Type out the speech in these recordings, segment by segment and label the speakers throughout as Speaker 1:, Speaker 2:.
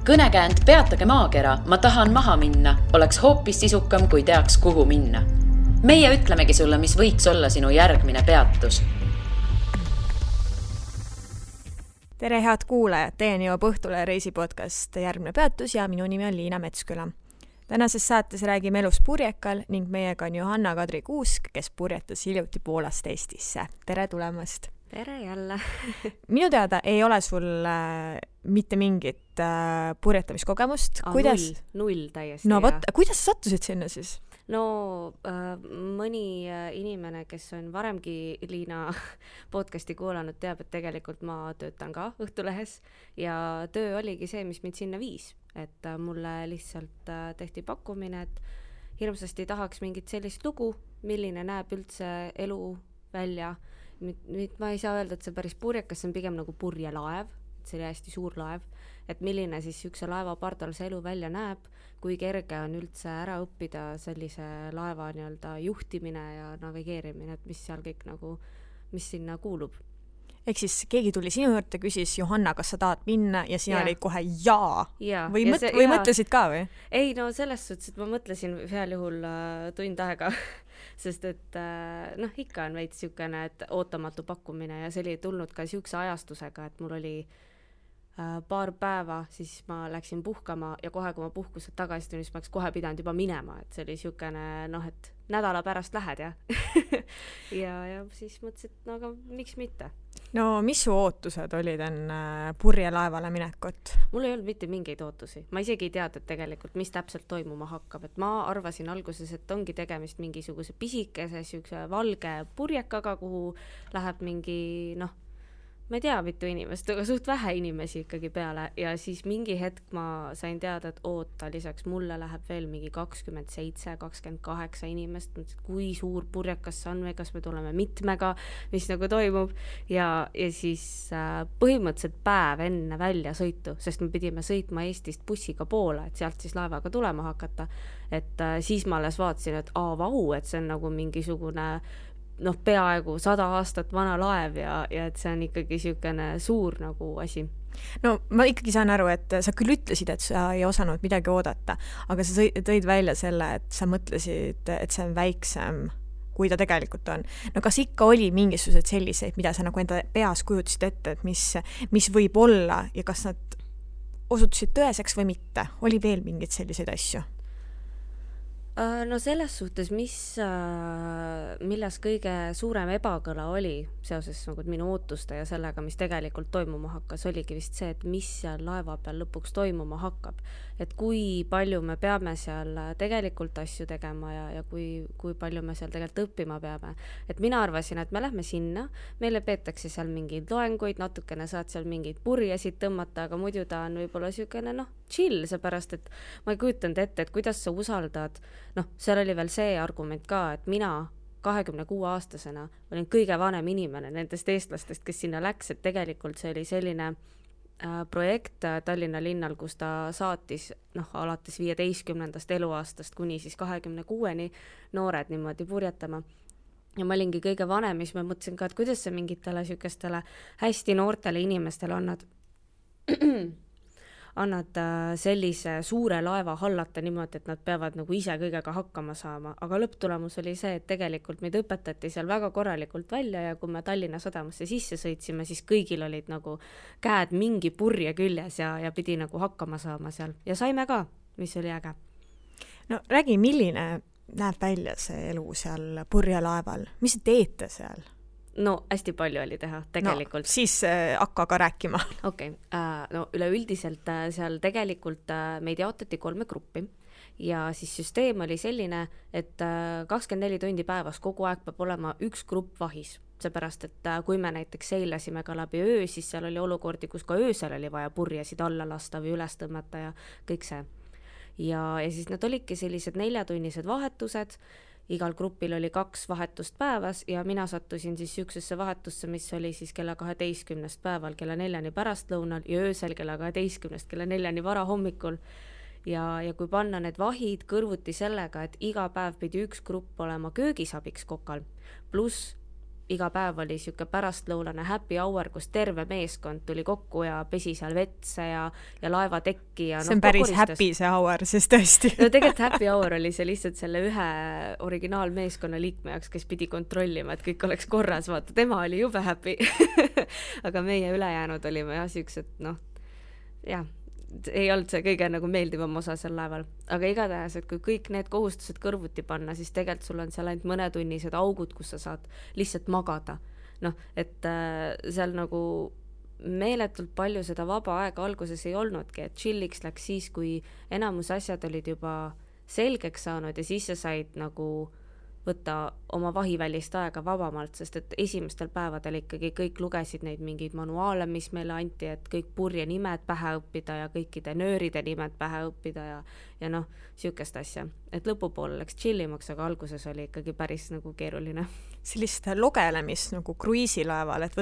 Speaker 1: Kõnekäänd Peatage maakera, ma tahan maha minna, oleks hoopis sisukam, kui teaks, kuhu minna. Meie ütlemegi sulle, mis võiks olla sinu järgmine peatus.
Speaker 2: Tere head kuulajad, teieni jõuab Õhtule reisipodcast Järgmine peatus ja minu nimi on Liina Metsküla. Tänases saates räägime elust purjekal ning meiega on Johanna-Kadri Kuusk, kes purjetas hiljuti Poolast Eestisse. Tere tulemast!
Speaker 3: Tere jälle!
Speaker 2: Minu teada ei ole sul mitte mingit purjetamiskogemust.
Speaker 3: Null täiesti.
Speaker 2: No võt, kuidas sa sattusid sinna siis?
Speaker 3: No mõni inimene, kes on varemgi Liina podcasti kuulanud, teab, et tegelikult ma töötan ka Õhtulehes ja töö oligi see, mis mind sinna viis. Et mulle lihtsalt tehti pakkumine, et hirmsasti tahaks mingit sellist lugu, milline näeb üldse elu välja. Nüüd ma ei saa öelda, et see päris purjekas, see on pigem nagu purjelaev, et see oli hästi suur laev, et milline siis ükse laeva pardal see elu välja näeb, kui kerge on üldse ära õppida sellise laeva nii-öelda juhtimine ja navigeerimine, et mis seal kõik nagu, mis sinna kuulub.
Speaker 2: Ehk siis keegi tuli sinu juurde, küsis Johanna, kas sa tahad minna ja sina olid kohe jaa. Või mõtlesid ka või?
Speaker 3: Ei, no selles suhtes, et ma mõtlesin heal juhul tund aega, sest et ikka on veits siukene, et ootamatu pakkumine ja see oli tulnud ka siukse ajastusega, et mul oli paar päeva, siis ma läksin puhkama ja kohe, kui ma puhkuselt tagasi tulin, siis ma oleks kohe pidanud juba minema, et see oli siukene, et nädala pärast lähed ja ja siis mõtlesin, et aga miks mitte.
Speaker 2: No mis su ootused olid enne purjelaevale minekut?
Speaker 3: Mul ei olnud mitte mingeid ootusi. Ma isegi ei teadnud tegelikult, mis täpselt toimuma hakkab. Et ma arvasin alguses, et ongi tegemist mingisuguse pisikese, siukse valge purjekaga, kuhu läheb mingi, ma ei tea mitu inimest, aga suht vähe inimesi ikkagi peale ja siis mingi hetk ma sain teada, et oota, lisaks mulle läheb veel mingi 27, 28 inimest, kui suur purjekas see on või kas me tuleme mitmega, mis nagu toimub ja siis põhimõtteliselt päev enne välja sõitu, sest me pidime sõitma Eestist bussiga poole, et sealt siis laevaga tulema hakata, et siis ma alles vaatasin, et vau, et see on nagu mingisugune peaaegu 100 aastat vana laev ja et see on ikkagi siukene suur nagu asi.
Speaker 2: No ma ikkagi saan aru, et sa küll ütlesid, et sa ei osanud midagi oodata, aga sa tõid välja selle, et sa mõtlesid, et see on väiksem, kui ta tegelikult on. No kas ikka oli mingisugused selliseid, mida sa nagu enda peas kujutasid ette, et mis võib olla ja kas nad osutusid tõeseks või mitte? Oli veel mingeid selliseid asju?
Speaker 3: No selles suhtes, milles kõige suurem ebakõla oli seoses nagu minu ootuste ja sellega, mis tegelikult toimuma hakkas, oligi vist see, et mis seal laeva peal lõpuks toimuma hakkab. Et kui palju me peame seal tegelikult asju tegema ja kui palju me seal tegelikult õppima peame. Et mina arvasin, et me lähme sinna, meile peetakse seal mingeid loenguid, natukene saad seal mingeid purjesid tõmmata, aga muidu ta on võib-olla siukene chill, seepärast, et ma ei kujutanud ette, et kuidas sa usaldad. Seal oli veel see argument ka, et mina 26-aastasena olin kõige vanem inimene nendest eestlastest, kes sinna läks, et tegelikult see oli selline projekt Tallinna linnal, kus ta saatis alates 15. eluaastast kuni siis 26-ni noored niimoodi purjetama. Ja ma olingi kõige vanem, mis ma mõtlesin ka, et kuidas see mingitele siukestele hästi noortele inimestele annad sellise suure laeva hallata niimoodi, et nad peavad nagu ise kõigega hakkama saama. Aga lõpptulemus oli see, et tegelikult meid õpetati seal väga korralikult välja ja kui me Tallinna sadamasse sisse sõitsime, siis kõigil olid nagu käed mingi purje küljes ja pidi nagu hakkama saama seal. Ja saime ka, mis oli äge.
Speaker 2: No räägi, milline näeb välja see elu seal purjelaeval? Mis teete seal?
Speaker 3: No hästi palju oli teha tegelikult.
Speaker 2: No, siis hakka ka rääkima.
Speaker 3: Okei, üleüldiselt seal tegelikult meid jaotati 3 gruppi ja siis süsteem oli selline, et 24 tundi päevas kogu aeg peab olema üks grupp vahis. Seepärast, et kui me näiteks seilasime ka läbi öö, siis seal oli olukordi, kus ka öösel oli vaja purjesid alla lasta või üles tõmmata ja kõik see. Ja siis nad olidki sellised 4-tunnised vahetused, igal grupil oli 2 vahetust päevas ja mina sattusin siis siuksesse vahetusse, mis oli siis kella 12 päeval, kella 4 pärastlõunal ja öösel kella 12 kella 4 vara hommikul. Ja kui panna need vahid kõrvuti sellega, et iga päev pidi üks grupp olema köögisabiks kokal, pluss iga päev oli siuke pärastlõunane happy hour, kus terve meeskond tuli kokku ja pesi seal vetse ja laevatekki ja
Speaker 2: see on päris happy see hour, siis tõesti.
Speaker 3: No tegelikult happy hour oli see lihtsalt selle ühe originaalmeeskonna liikme jaoks, kes pidi kontrollima, et kõik oleks korras, vaata, tema oli jube happy. Aga meie ülejäänud olime jah siuksed, jah, ei olnud see kõige nagu meeldivam osa seal laeval. Aga igatahes, et kui kõik need kohustused kõrvuti panna, siis tegelikult sul on seal ainult mõnetunnised augud, kus sa saad lihtsalt magada. Et seal nagu meeletult palju seda vaba aega alguses ei olnudki, et chilliks läks siis, kui enamus asjad olid juba selgeks saanud ja siis sa said nagu võtta oma vahivälist aega vabamalt, sest et esimestel päevadel ikkagi kõik lugesid neid mingeid manuaale, mis meile anti, et kõik purje nimed pähe õppida ja kõikide nööride nimed pähe õppida ja siukest asja. Et lõpupoole läks chillimaks, aga alguses oli ikkagi päris nagu keeruline.
Speaker 2: Sellist logelemist nagu kruiisilaeval, et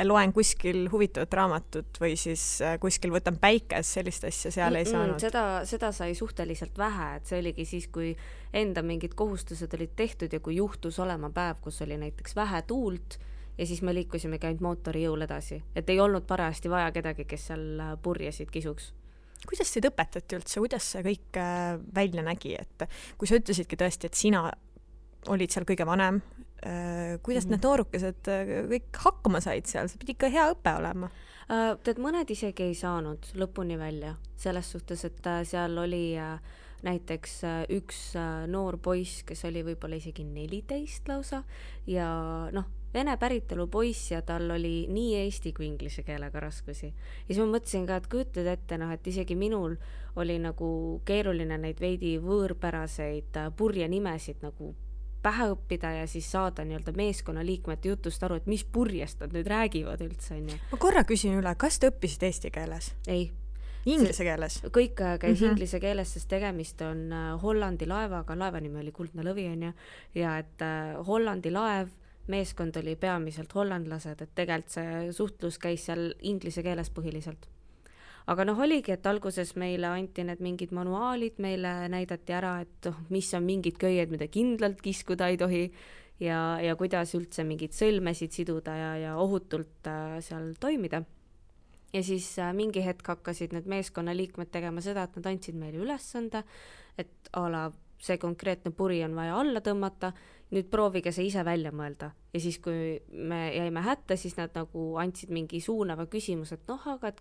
Speaker 2: loen kuskil huvitavat raamatut või siis kuskil võtan päikes, sellist asja seal ei saanud.
Speaker 3: Seda sai suhteliselt vähe, et see oligi siis, kui enda mingid kohustused olid tehtud ja kui juhtus olema päev, kus oli näiteks vähe tuult ja siis me liikusimegi ainult mootori jõul edasi. Et ei olnud parajasti vaja kedagi, kes seal purjesid kisuks.
Speaker 2: Kuidas teid õpetati üldse, kuidas see kõik välja nägi, et kui sa ütlesidki tõesti, et sina olid seal kõige vanem, kuidas need noorukesed kõik hakkama said seal, see pidi ikka hea õpe olema?
Speaker 3: Tead, mõned isegi ei saanud lõpuni välja, selles suhtes, et seal oli näiteks üks noor poiss, kes oli võib-olla isegi 14 lausa ja vene päritolu poiss ja tal oli nii eesti kui inglise keelega raskusi. Ja siis ma mõtlesin ka, et kujutled ette, et isegi minul oli nagu keeruline neid veidi võõrpäraseid purje nimesid nagu pähe õppida ja siis saada nii-öelda meeskonna liikmete jutust aru, et mis purjest nad nüüd räägivad üldse.
Speaker 2: Ma korra küsin üle, kas te õppisid eesti keeles?
Speaker 3: Ei.
Speaker 2: Inglise keeles?
Speaker 3: Kõik käis inglise keeles, sest tegemist on Hollandi laevaga, laeva nimi oli Kuldne Lõvi ja et Hollandi laev, meeskond oli peamiselt hollandlased, et tegelikult see suhtlus käis seal inglise keeles põhiliselt. Aga oligi, et alguses meile anti need mingid manuaalid, meile näidati ära, et mis on mingid köied, mida kindlalt kiskuda ei tohi ja kuidas üldse mingid sõlmesid siduda ja ohutult seal toimida. Ja siis mingi hetk hakkasid need meeskonna liikmed tegema seda, et nad andsid meile ülesande, et see konkreetne puri on vaja alla tõmmata, nüüd proovige see ise välja mõelda. Ja siis, kui me jäime hätta, siis nad nagu andsid mingi suunava küsimus, et aga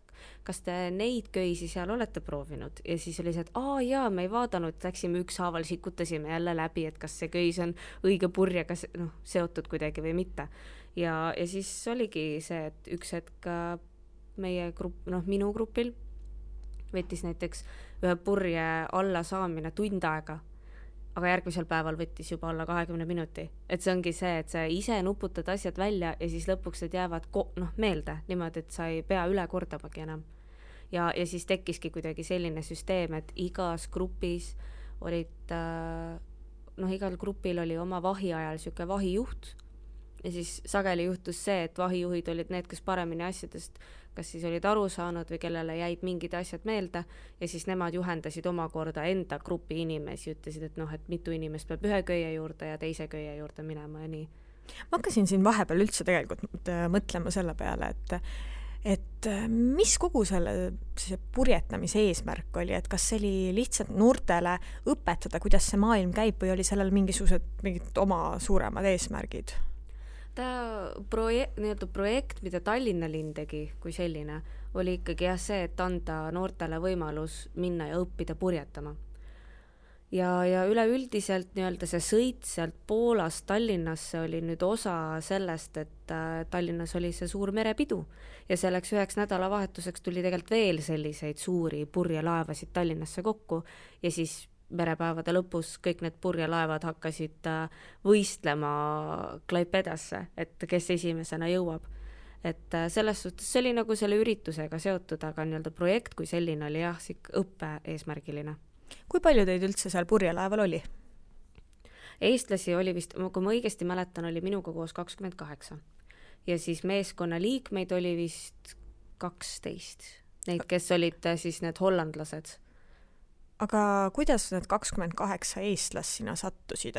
Speaker 3: kas te neid köisi seal olete proovinud? Ja siis oli see, et jaa, me ei vaadanud, läksime ükshaaval, sikutasime jälle läbi, et kas see köis on õige purjega seotud kuidagi või mitte. Ja siis oligi see, et üks hetk meie grupp, minu grupil võttis näiteks ühe purje alla saamine tund aega, aga järgmisel päeval võttis juba alla 20 minuti. Et see ongi see, et sa ise nuputad asjad välja ja siis lõpuks need jäävad meelde niimoodi, et sa ei pea üle kordamagi enam. Ja siis tekkiski kuidagi selline süsteem, et igas grupis olid, igal grupil oli oma vahi ajal siuke vahijuht ja siis sageli juhtus see, et vahijuhid olid need, kes paremini asjadest kas siis olid aru saanud või kellele jäid mingid asjad meelde ja siis nemad juhendasid omakorda enda grupi inimesi, ütlesid, et mitu inimest peab ühe köie juurde ja teise köie juurde minema ja nii.
Speaker 2: Ma hakkasin siin vahepeal üldse tegelikult mõtlema selle peale, et mis kogu selle purjetamise eesmärk oli, et kas see oli lihtsalt noortele õpetada, kuidas see maailm käib või oli sellel mingid oma suuremad eesmärgid?
Speaker 3: Projekt, mida Tallinna linn tegi kui selline, oli ikkagi see, et anda noortele võimalus minna ja õppida purjetama. Ja üleüldiselt see sõit sealt Poolast Tallinnasse oli nüüd osa sellest, et Tallinnas oli see suur merepidu ja selleks üheks nädalavahetuseks tuli tegelikult veel selliseid suuri purjelaevasid Tallinnasse kokku ja siis merepäevade lõpus kõik need purjelaevad hakkasid võistlema Klaipedasse, et kes esimesena jõuab. Et selles suhtes see oli nagu selle üritusega seotud, aga projekt kui selline oli õppe eesmärgiline.
Speaker 2: Kui palju teid üldse seal purjelaeval oli?
Speaker 3: Eestlasi oli vist, kui ma õigesti mäletan, oli minuga koos 28. Ja siis meeskonna liikmeid oli vist 12. Neid, kes olid siis need hollandlased.
Speaker 2: aga kuidas need 28 eestlast sinna sattusid,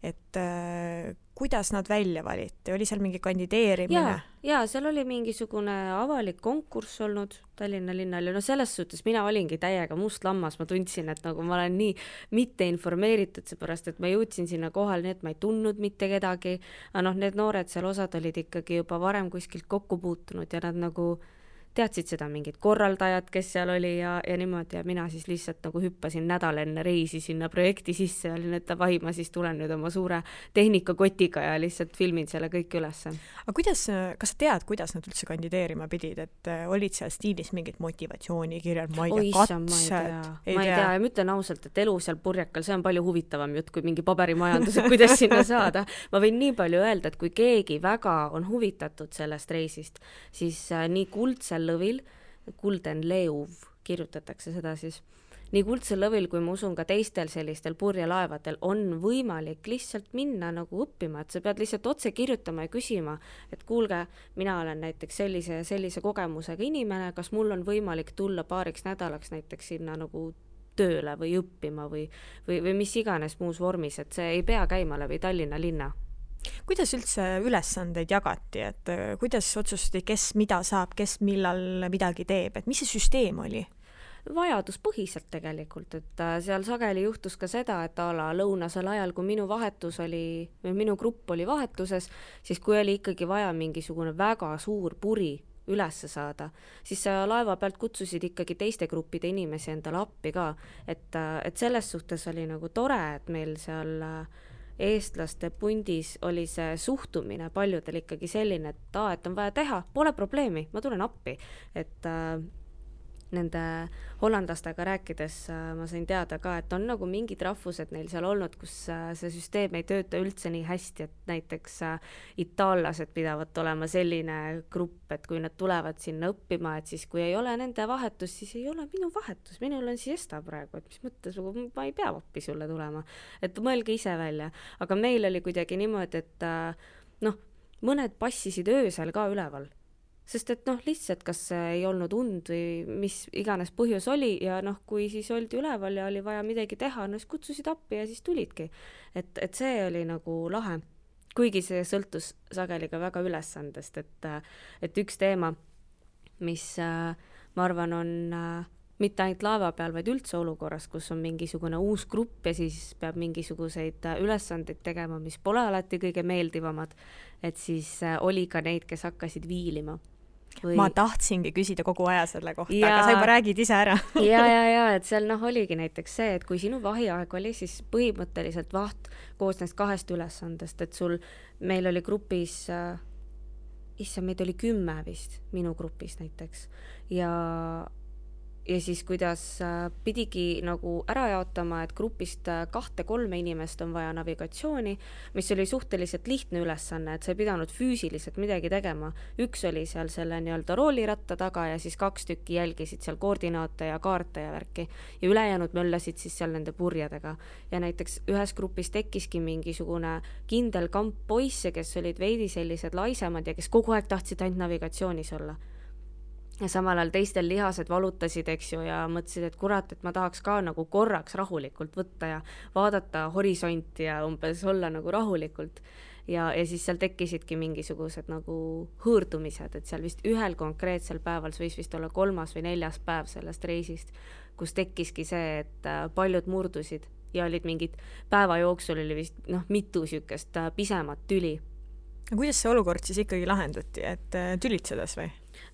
Speaker 2: et kuidas nad välja valiti, oli seal mingi kandideerimine?
Speaker 3: Ja seal oli mingisugune avalik konkurss olnud Tallinna linnal ja no selles suhtes mina olingi täiega must lammas, ma tundsin, et nagu ma olen nii mitte informeeritud, seepärast et ma jõudsin sinna kohal, nii et ma ei tundnud mitte kedagi, aga noh, need noored seal osad olid ikkagi juba varem kuskilt kokku puutunud ja nad nagu teadsid seda mingid korraldajad, kes seal oli ja niimoodi ja mina siis lihtsalt nagu hüppasin nädal enne reisi sinna projekti sisse ja olin, et davai, ma siis tulen nüüd oma suure tehnikakotiga ja lihtsalt filmin selle kõik ülesse.
Speaker 2: Aga kuidas, kas sa tead, kuidas nad üldse kandideerima pidid, et olid seal stiilis mingid motivatsioonikirjad, ma ei tea, katsed?
Speaker 3: Ma ei tea ja ma ütlen ausalt, et elu seal Purjakal, see on palju huvitavam jutt kui mingi paberimajandus, et kuidas sinna saada. Ma võin nii palju öelda, et kui keegi väga on huvitatud sellest reisist, siis nii Kuldsel lõvil, Golden Leeuv kirjutatakse seda siis, nii Kuldsel lõvil kui ma usun ka teistel sellistel purjelaevadel on võimalik lihtsalt minna nagu õppima, et sa pead lihtsalt otse kirjutama ja küsima, et kuulge, mina olen näiteks sellise kogemusega inimene, kas mul on võimalik tulla paariks nädalaks näiteks sinna nagu tööle või õppima või mis iganes muus vormis, et see ei pea käima läbi Tallinna linna.
Speaker 2: Kuidas üldse ülesandeid jagati, et kuidas otsustati, kes mida saab, kes millal midagi teeb, et mis see süsteem oli?
Speaker 3: Vajaduspõhiselt tegelikult, et seal sageli juhtus ka seda, et lõunasel ajal, kui minu vahetus oli, või minu grupp oli vahetuses, siis kui oli ikkagi vaja mingisugune väga suur puri ülesse saada, siis laeva pealt kutsusid ikkagi teiste gruppide inimesi endale appi ka, et selles suhtes oli nagu tore, et meil seal eestlaste pundis oli see suhtumine paljudel ikkagi selline, et on vaja teha, pole probleemi, ma tulen appi, et nende hollandlastega rääkides ma sain teada ka, et on nagu mingid rahvused neil seal olnud, kus see süsteem ei tööta üldse nii hästi, et näiteks itaallased pidavad olema selline grupp, et kui nad tulevad sinna õppima, et siis kui ei ole nende vahetus, siis ei ole minu vahetus, minul on siesta praegu, et mis mõttes, ma ei pea appi sulle tulema, et mõelge ise välja, aga meil oli kuidagi niimoodi, et mõned passisid öösel ka üleval. Sest et lihtsalt kas ei olnud und või mis iganes põhjus oli ja kui siis oldi üleval ja oli vaja midagi teha, siis kutsusid appi ja siis tulidki. Et see oli nagu lahe. Kuigi see sõltus sageli ka väga ülesandest, et üks teema, mis ma arvan on mitte ainult laeva peal, vaid üldse olukorras, kus on mingisugune uus grupp ja siis peab mingisuguseid ülesandeid tegema, mis pole alati kõige meeldivamad, et siis oli ka neid, kes hakkasid viilima.
Speaker 2: Ma tahtsingi küsida kogu aja selle kohta, aga sa juba räägid ise ära.
Speaker 3: ja, et seal oligi näiteks see, et kui sinu vahiaeg oli, siis põhimõtteliselt vaht koosnes 2 ülesandest, et meil oli grupis, meid oli 10 vist, minu grupis näiteks, ja siis kuidas pidigi nagu ära jaotama, et grupist 2-3 inimest on vaja navigatsiooni, mis oli suhteliselt lihtne ülesanne, et sa ei pidanud füüsiliselt midagi tegema. Üks oli seal selle nii-öelda rooliratta taga ja siis 2 tükki jälgisid seal koordinaate ja kaarte ja värki. Ja ülejäänud möllasid siis seal nende purjedega. Ja näiteks ühes grupis tekkiski mingisugune kindel kamp poisse, kes olid veidi sellised laisemad ja kes kogu aeg tahtsid ainult navigatsioonis olla. Ja samal ajal teistel lihased valutasid, eks ju, ja mõtlesid, et kurat, et ma tahaks ka nagu korraks rahulikult võtta ja vaadata horisonti ja umbes olla nagu rahulikult. Ja siis seal tekkisidki mingisugused nagu hõõrdumised, et seal vist ühel konkreetsel päeval, see võis vist olla 3. või 4. päev sellest reisist, kus tekkiski see, et paljud murdusid ja olid mingid päeva jooksul oli vist mitu sükest pisemat tüli.
Speaker 2: Kuidas see olukord siis ikkagi lahendati, et tülitsedes või?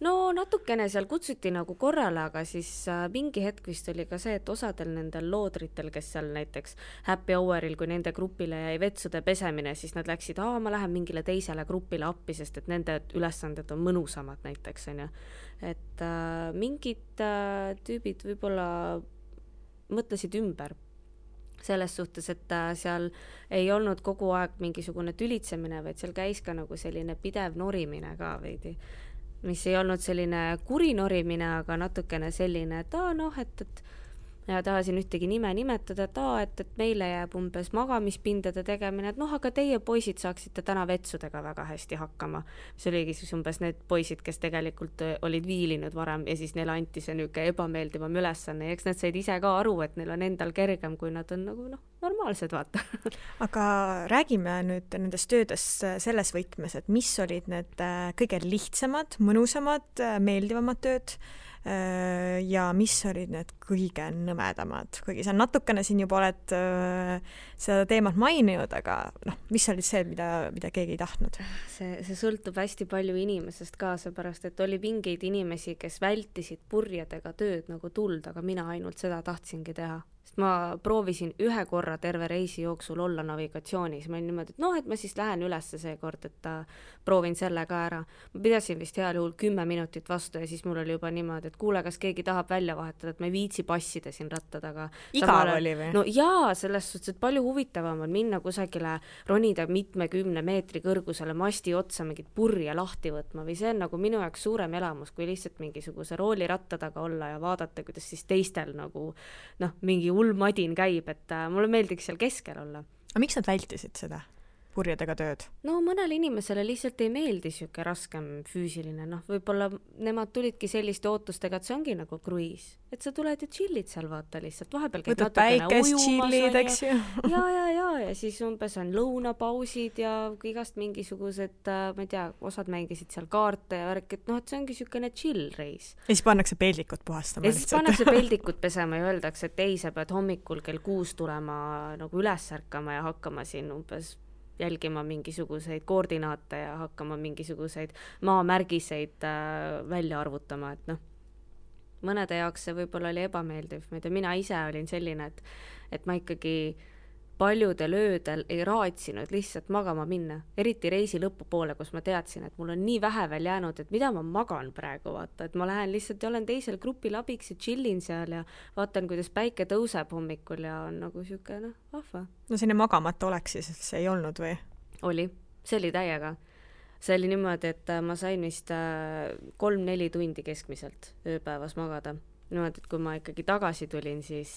Speaker 3: No natukene seal kutsuti nagu korrale, aga siis mingi hetk vist oli ka see, et osadel nendel loodritel, kes seal näiteks happy houril, kui nende grupile jäi vetsude pesemine, siis nad läksid, ma lähen mingile teisele grupile appi, sest et nende ülesanded on mõnusamad näiteks, on ju. Et mingid tüübid võib-olla mõtlesid ümber selles suhtes, et seal ei olnud kogu aeg mingisugune tülitsemine, vaid seal käis ka nagu selline pidev norimine ka veidi, mis ei olnud selline kuri norimine, aga natukene selline, et ja tahasin ühtegi nime nimetada, et meile jääb umbes magamispindade tegemine, et aga teie poisid saaksite täna vetsudega väga hästi hakkama. See oligi siis umbes need poisid, kes tegelikult olid viilinud varem ja siis neile anti see niisugune ebameeldivam ülesanne ja eks nad said ise ka aru, et neil on endal kergem, kui nad on nagu normaalsed, vaata.
Speaker 2: Aga räägime nüüd nendest töödest selles võtmes, et mis olid need kõige lihtsamad, mõnusamad, meeldivamad tööd ja mis olid need kõige nõmedamad, kuigi sa natukene siin juba oled seda teemat maininud, aga mis olid see, mida keegi ei tahtnud?
Speaker 3: See sõltub hästi palju inimesest ka, seepärast, et oli mingeid inimesi, kes vältisid purjedega tööd nagu tuld, aga mina ainult seda tahtsingi teha. Sest ma proovisin ühe korra terve reisi jooksul olla navigatsioonis. Ma olin niimoodi, et ma siis lähen ülesse see kord, et proovin selle ka ära. Ma pidasin vist heal juhul 10 minutit vastu ja siis mul oli juba niimoodi, et kuule, kas keegi tahab välja vahetada, et ma ei viitsi passida siin rattad, aga
Speaker 2: igav oli või?
Speaker 3: No jaa, selles suhtes, et palju huvitavam on minna kusagile, ronida 10 meetri kõrgusele masti otsa mingit purje lahti võtma või see on nagu minu jaoks suurem elamus, kui lihtsalt mingisuguse rooliratta taga olla ja vaadata, kuidas siis teistel nagu mingi ulmadin käib, et mulle meeldiks seal keskel olla.
Speaker 2: Aga miks nad vältisid seda purjedega tööd?
Speaker 3: No mõnele inimesele lihtsalt ei meeldi siuke raskem füüsiline, võib-olla nemad tulidki selliste ootustega, et see ongi nagu kruiis, et sa tuled ja chillid seal, vaata lihtsalt, vahepeal käid
Speaker 2: võtad päikest, chillid, eks ju.
Speaker 3: ja siis umbes on lõunapausid ja igast mingisugused, ma ei tea, osad mängisid seal kaarte ja värk, et see ongi siukene chill reis.
Speaker 2: Ja siis pannakse peldikut puhastama
Speaker 3: lihtsalt. Ja siis pannakse peldikut pesema ja öeldakse, et ei, sa pead hommikul kell 6 tulema nagu üles ärkama ja hakkama siin umbes jälgima mingisuguseid koordinaate ja hakkama mingisuguseid maamärgiseid välja arvutama, et mõnede jaoks see võib-olla oli ebameeldiv. Mina ise olin selline, et ma ikkagi paljudel öödel ei raatsinud lihtsalt magama minna, eriti reisi lõpupoole, kus ma teadsin, et mul on nii vähe veel jäänud, et mida ma magan praegu, vaata, et ma lähen lihtsalt ja olen teisel grupil abiks ja chillin seal ja vaatan, kuidas päike tõuseb hommikul ja on nagu siuke, vahva.
Speaker 2: No sinne magamata oleks siis ei olnud või?
Speaker 3: Oli, see oli täiega. See oli niimoodi, et ma sain vist 3-4 tundi keskmiselt ööpäevas magada. Niimoodi, et kui ma ikkagi tagasi tulin, siis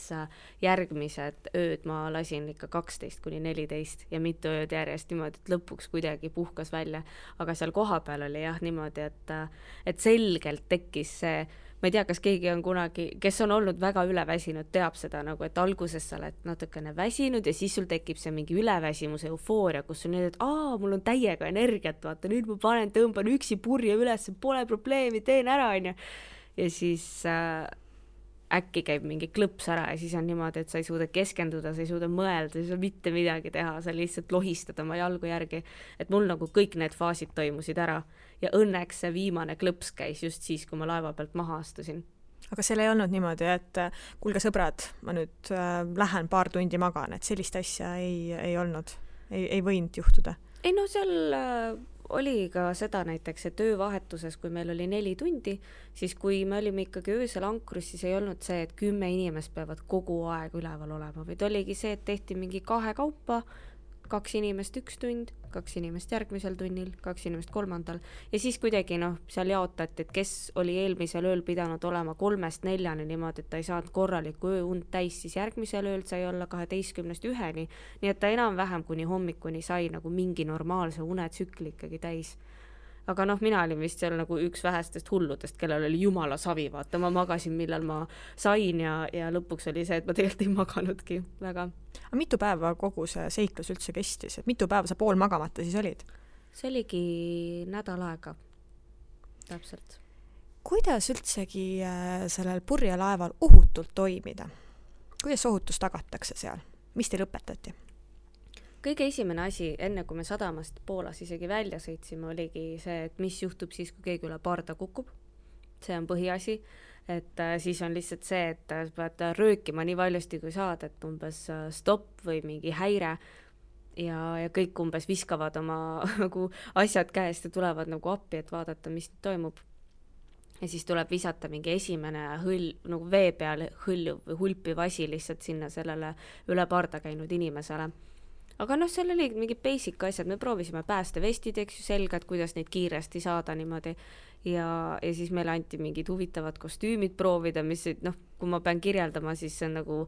Speaker 3: järgmised ööd ma lasin ikka 12-14 ja mitu ööd järjest niimoodi, et lõpuks kuidagi puhkas välja. Aga seal kohapeal oli jah niimoodi, et selgelt tekkis see, ma ei tea, kas keegi on kunagi, kes on olnud väga üleväsinud, teab seda nagu, et alguses sa oled natukene väsinud ja siis sul tekib see mingi üleväsimuse eufooria, kus sul nüüd, et mul on täiega energiat, vaata, nüüd ma tõmban üksi purje üles, pole probleemi, teen ära, onju. Ja siis äkki käib mingi klõps ära ja siis on niimoodi, et sa ei suuda keskenduda, sa ei suuda mõelda, sa ei suuda mitte midagi teha, sa lihtsalt lohistad oma jalgu järgi. Et mul nagu kõik need faasid toimusid ära ja õnneks see viimane klõps käis just siis, kui ma laeva pealt maha astusin.
Speaker 2: Aga seal ei olnud niimoodi, et kuulge sõbrad, ma nüüd lähen paar tundi magan, et sellist asja ei olnud, ei võinud juhtuda?
Speaker 3: Ei seal oli ka seda näiteks, et öövahetuses, kui meil oli 4 tundi, siis kui me olime ikkagi öösel ankrus, siis ei olnud see, et 10 inimest peavad kogu aeg üleval olema, vaid oligi see, et tehti mingi 2 kaupa, 2 inimest 1 tund, 2 inimest järgmisel tunnil, 2 inimest 3. Ja siis kuidagi seal jaotati, et kes oli eelmisel ööl pidanud olema 3-4 niimoodi, et ta ei saanud korralikku ööund täis, siis järgmisel ööl sai olla 12-1, nii et ta enam-vähem kuni hommikuni sai nagu mingi normaalse unetsükli ikkagi täis. Aga mina olin vist seal nagu üks vähestest hulludest, kellel oli jumala savi, vaata, ma magasin, millal ma sain ja lõpuks oli see, et ma tegelikult ei maganudki väga.
Speaker 2: Aga mitu päeva kogu see seiklus üldse kestis? Et mitu päeva sa pool magamata siis olid?
Speaker 3: See oligi nädal aega, täpselt.
Speaker 2: Kuidas üldsegi sellel purjelaeval ohutult toimida? Kuidas ohutus tagatakse seal? Mis teil õpetati?
Speaker 3: Kõige esimene asi, enne kui me sadamast Poolas isegi välja sõitsime, oligi see, et mis juhtub siis, kui keegi üle parda kukub. See on põhiasi, et siis on lihtsalt see, et pead röökima nii valjusti kui saad, et umbes stopp või mingi häire ja kõik umbes viskavad oma nagu asjad käest ja tulevad nagu appi, et vaadata, mis toimub. Ja siis tuleb visata mingi esimene nagu vee peal hõljuv või hulpiv asi lihtsalt sinna sellele üle parda käinud inimesele. aga noh, seal oli mingid basic asjad, me proovisime päästevestid, eks ju, selga, et kuidas neid kiiresti saada niimoodi ja siis meile anti mingid huvitavad kostüümid proovida, mis noh, kui ma pean kirjeldama, siis see on nagu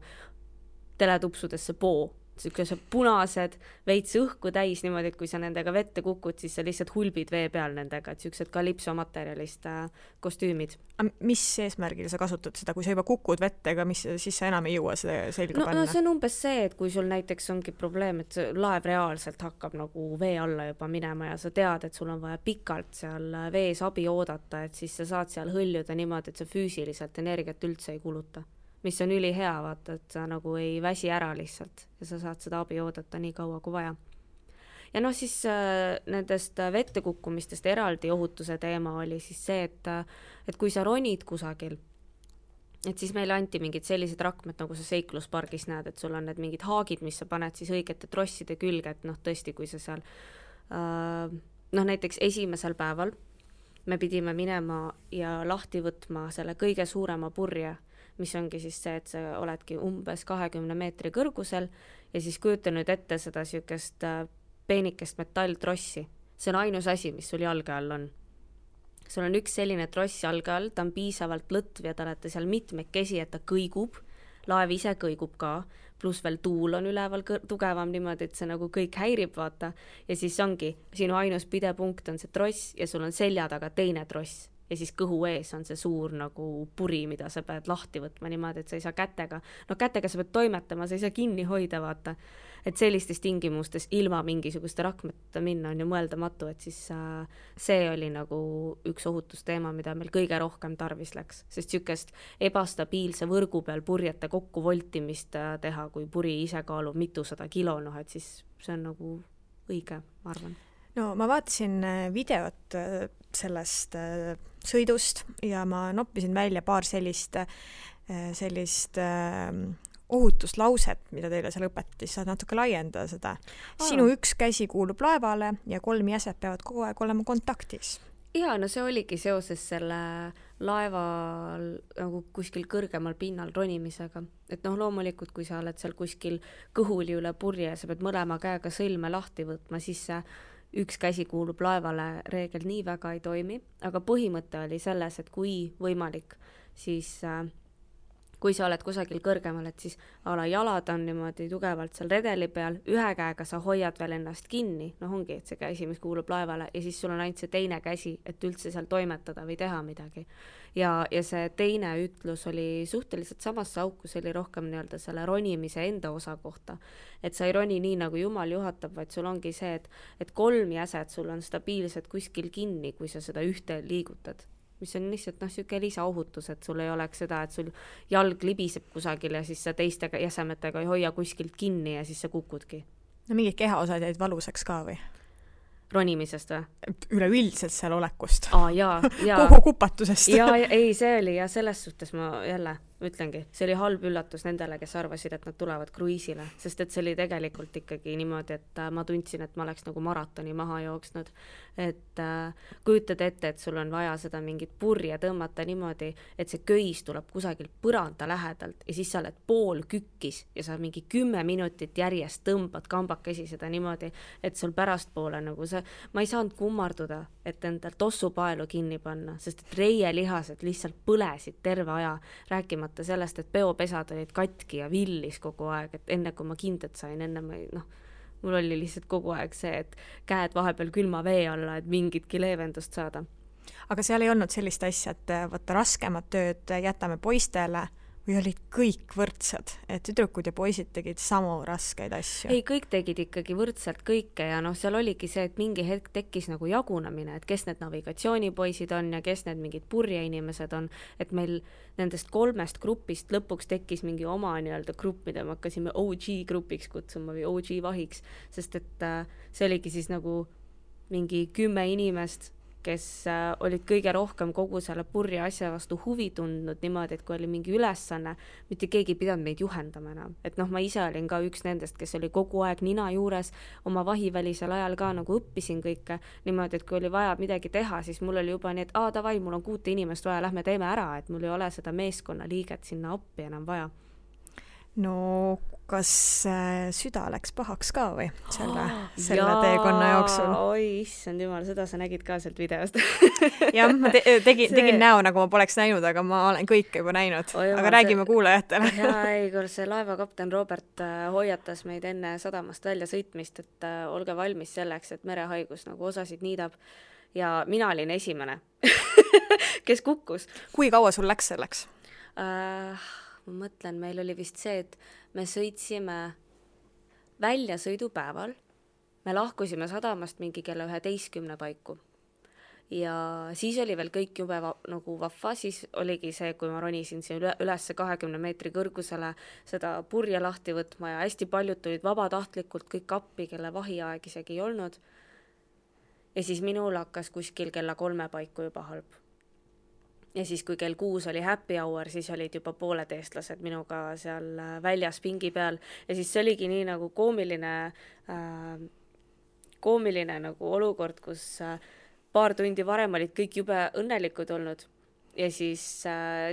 Speaker 3: teletupsudesse poo, sellised punased, veits õhku täis niimoodi, et kui sa nendega vette kukud, siis sa lihtsalt hulbid vee peal nendega, et sellised kalipsomaterjalist kostüümid.
Speaker 2: Mis eesmärgil sa kasutad seda, kui sa juba kukud vette, aga siis sa enam ei jõua seda selga panna?
Speaker 3: No see on umbes see, et kui sul näiteks ongi probleem, et laev reaalselt hakkab nagu vee alla juba minema ja sa tead, et sul on vaja pikalt seal vees abi oodata, et siis sa saad seal hõljuda niimoodi, et sa füüsiliselt energiat üldse ei kuluta. Mis on ülihea, vaata, et sa nagu ei väsi ära lihtsalt ja sa saad seda abi oodata nii kaua kui vaja. Ja noh, siis nendest vette kukkumistest eraldi ohutuse teema oli siis see, et kui sa ronid kusagil, et siis meile anti mingid sellised rakmed, nagu sa seikluspargis näed, et sul on need mingid haagid, mis sa paned siis õigete trosside külge, et noh, tõesti, kui sa seal noh, näiteks esimesel päeval me pidime minema ja lahti võtma selle kõige suurema purje, mis ongi siis see, et sa oledki umbes 20 meetri kõrgusel ja siis kujuta nüüd ette seda sükest peenikest metalltrossi. See on ainus asi, mis sul jalge all on. Sul on üks selline tross jalge all, ta on piisavalt lõtv ja ta olete seal mitmekesi, et ta kõigub, laev ise kõigub ka, pluss veel tuul on üleval tugevam niimoodi, et see nagu kõik häirib, vaata. Ja siis ongi, sinu ainus pidepunkt on see tross ja sul on selja taga teine tross. Ja siis kõhu ees on see suur nagu puri, mida sa pead lahti võtma niimoodi, et sa ei saa kätega. No kätega sa pead toimetama, sa ei saa kinni hoida, vaata. Et sellistes tingimustes ilma mingisuguste rakmeta minna on ju mõeldamatu, et siis see oli nagu üks ohutusteema, mida meil kõige rohkem tarvis läks. Sest sükest ebastabiilse võrgu peal purjete kokku voltimist teha, kui puri ise kaalub mitusada kilo, noh, et siis see on nagu õige, ma arvan.
Speaker 2: No ma vaatasin videot sellest sõidust ja ma noppisin välja paar sellist ohutuslauset, mida teile seal õpetis, saad natuke laiendada seda. Sinu üks käsi kuulub laevale ja 3 jäset peavad kogu aeg olema kontaktis.
Speaker 3: Ja, no see oligi seoses selle laeval nagu kuskil kõrgemal pinnal ronimisega. Et noh, loomulikult, kui sa oled seal kuskil kõhuli üle purje, sa pead mõlema käega sõlme lahti võtma, siis see üks käsi kuulub laevale reegel nii väga ei toimi, aga põhimõte oli selles, et kui võimalik, siis kui sa oled kusagil kõrgemal, et siis ala jalad on niimoodi tugevalt seal redeli peal, ühe käega sa hoiad veel ennast kinni, noh ongi, et see käsi, mis kuulub laevale ja siis sul on ainult see teine käsi, et üldse seal toimetada või teha midagi. Ja see teine ütlus oli suhteliselt samasse auku, see oli rohkem nii-öelda selle ronimise enda osa kohta, et sa ei roni nii nagu Jumal juhatab, vaid sul ongi see, et 3 jäset sul on stabiilsed kuskil kinni, kui sa seda ühte liigutad. Mis on lihtsalt siuke lisaohutus, et sul ei oleks seda, et sul jalg libiseb kusagil ja siis sa teiste jäsemetega ei hoia kuskilt kinni ja siis sa kukudki.
Speaker 2: No mingid kehaosad jäid valusaks ka või?
Speaker 3: Ronimisest või?
Speaker 2: Üleüldiselt seal olekust.
Speaker 3: Jaa.
Speaker 2: Kogu kupatusest.
Speaker 3: Ei, see oli ja selles suhtes ma jälle ütlengi, see oli halb üllatus nendele, kes arvasid, et nad tulevad kruiisile, sest et see oli tegelikult ikkagi niimoodi, et ma tundsin, et ma oleks nagu maratoni maha jooksnud, et kujutad ette, et sul on vaja seda mingit purje tõmmata niimoodi, et see köis tuleb kusagilt põranda lähedalt ja siis sa oled pool kükkis ja sa mingi 10 minutit järjest tõmbad kambakesi seda niimoodi, et sul pärastpoole nagu see, ma ei saanud kummarduda, et endal tossupaelu kinni panna, sest et reielihased lihtsalt põlesid terve aja, rääkimata sellest, et peopesad olid katki ja villis kogu aeg, et enne kui ma kindet sain, mul oli lihtsalt kogu aeg see, et käed vahepeal külma vee alla, et mingitki leevendust saada.
Speaker 2: Aga seal ei olnud sellist asja, et võtta raskemat tööd jätame poistele või olid kõik võrdsed, et tüdrukud ja poisid tegid samu raskeid asju?
Speaker 3: Ei, kõik tegid ikkagi võrdselt kõike ja seal oligi see, et mingi hetk tekkis nagu jagunamine, et kes need navigatsioonipoisid on ja kes need mingid purjeinimesed on, et meil nendest 3 grupist lõpuks tekkis mingi oma nii-öelda grupp, mida me hakkasime OG grupiks kutsuma või OG vahiks, sest et see oligi siis nagu mingi 10 inimest, kes olid kõige rohkem kogu selle purje asja vastu huvi tundnud niimoodi, et kui oli mingi ülesanne, mitte keegi pidanud meid juhendama enam. Et ma ise olin ka üks nendest, kes oli kogu aeg nina juures, oma vahivälisel ajal ka nagu õppisin kõike niimoodi, et kui oli vaja midagi teha, siis mul oli juba nii, et davai, mul on 6 inimest vaja, lähme teeme ära, et mul ei ole seda meeskonna liiget sinna appi enam vaja.
Speaker 2: no kas süda läks pahaks ka või selle teekonna jooksul?
Speaker 3: Oi, issand jumal, seda sa nägid ka sealt videost.
Speaker 2: Jah, ma tegin näo, nagu ma poleks näinud, aga ma olen kõike juba näinud. Aga räägime kuulajatele.
Speaker 3: Ei, kui see laevakapten Robert hoiatas meid enne sadamast välja sõitmist, et olge valmis selleks, et merehaigus nagu osasid niidab. Ja mina olin esimene, kes kukkus.
Speaker 2: Kui kaua sul läks selleks?
Speaker 3: Ma mõtlen, meil oli vist see, et me sõitsime väljasõidupäeval, me lahkusime sadamast mingi kella 11 paiku ja siis oli veel kõik jube nagu vahva, siis oligi see, kui ma ronisin siin üles 20 meetri kõrgusele seda purje lahti võtma ja hästi paljud tulid vabatahtlikult kõik appi, kelle vahiaeg isegi ei olnud ja siis minul hakkas kuskil kella 3 paiku juba halb. Ja siis, kui kell 6 oli happy hour, siis olid juba pooled eestlased minuga seal väljas pingi peal. Ja siis see oligi nii nagu koomiline nagu olukord, kus paar tundi varem olid kõik jube õnnelikud olnud. Ja siis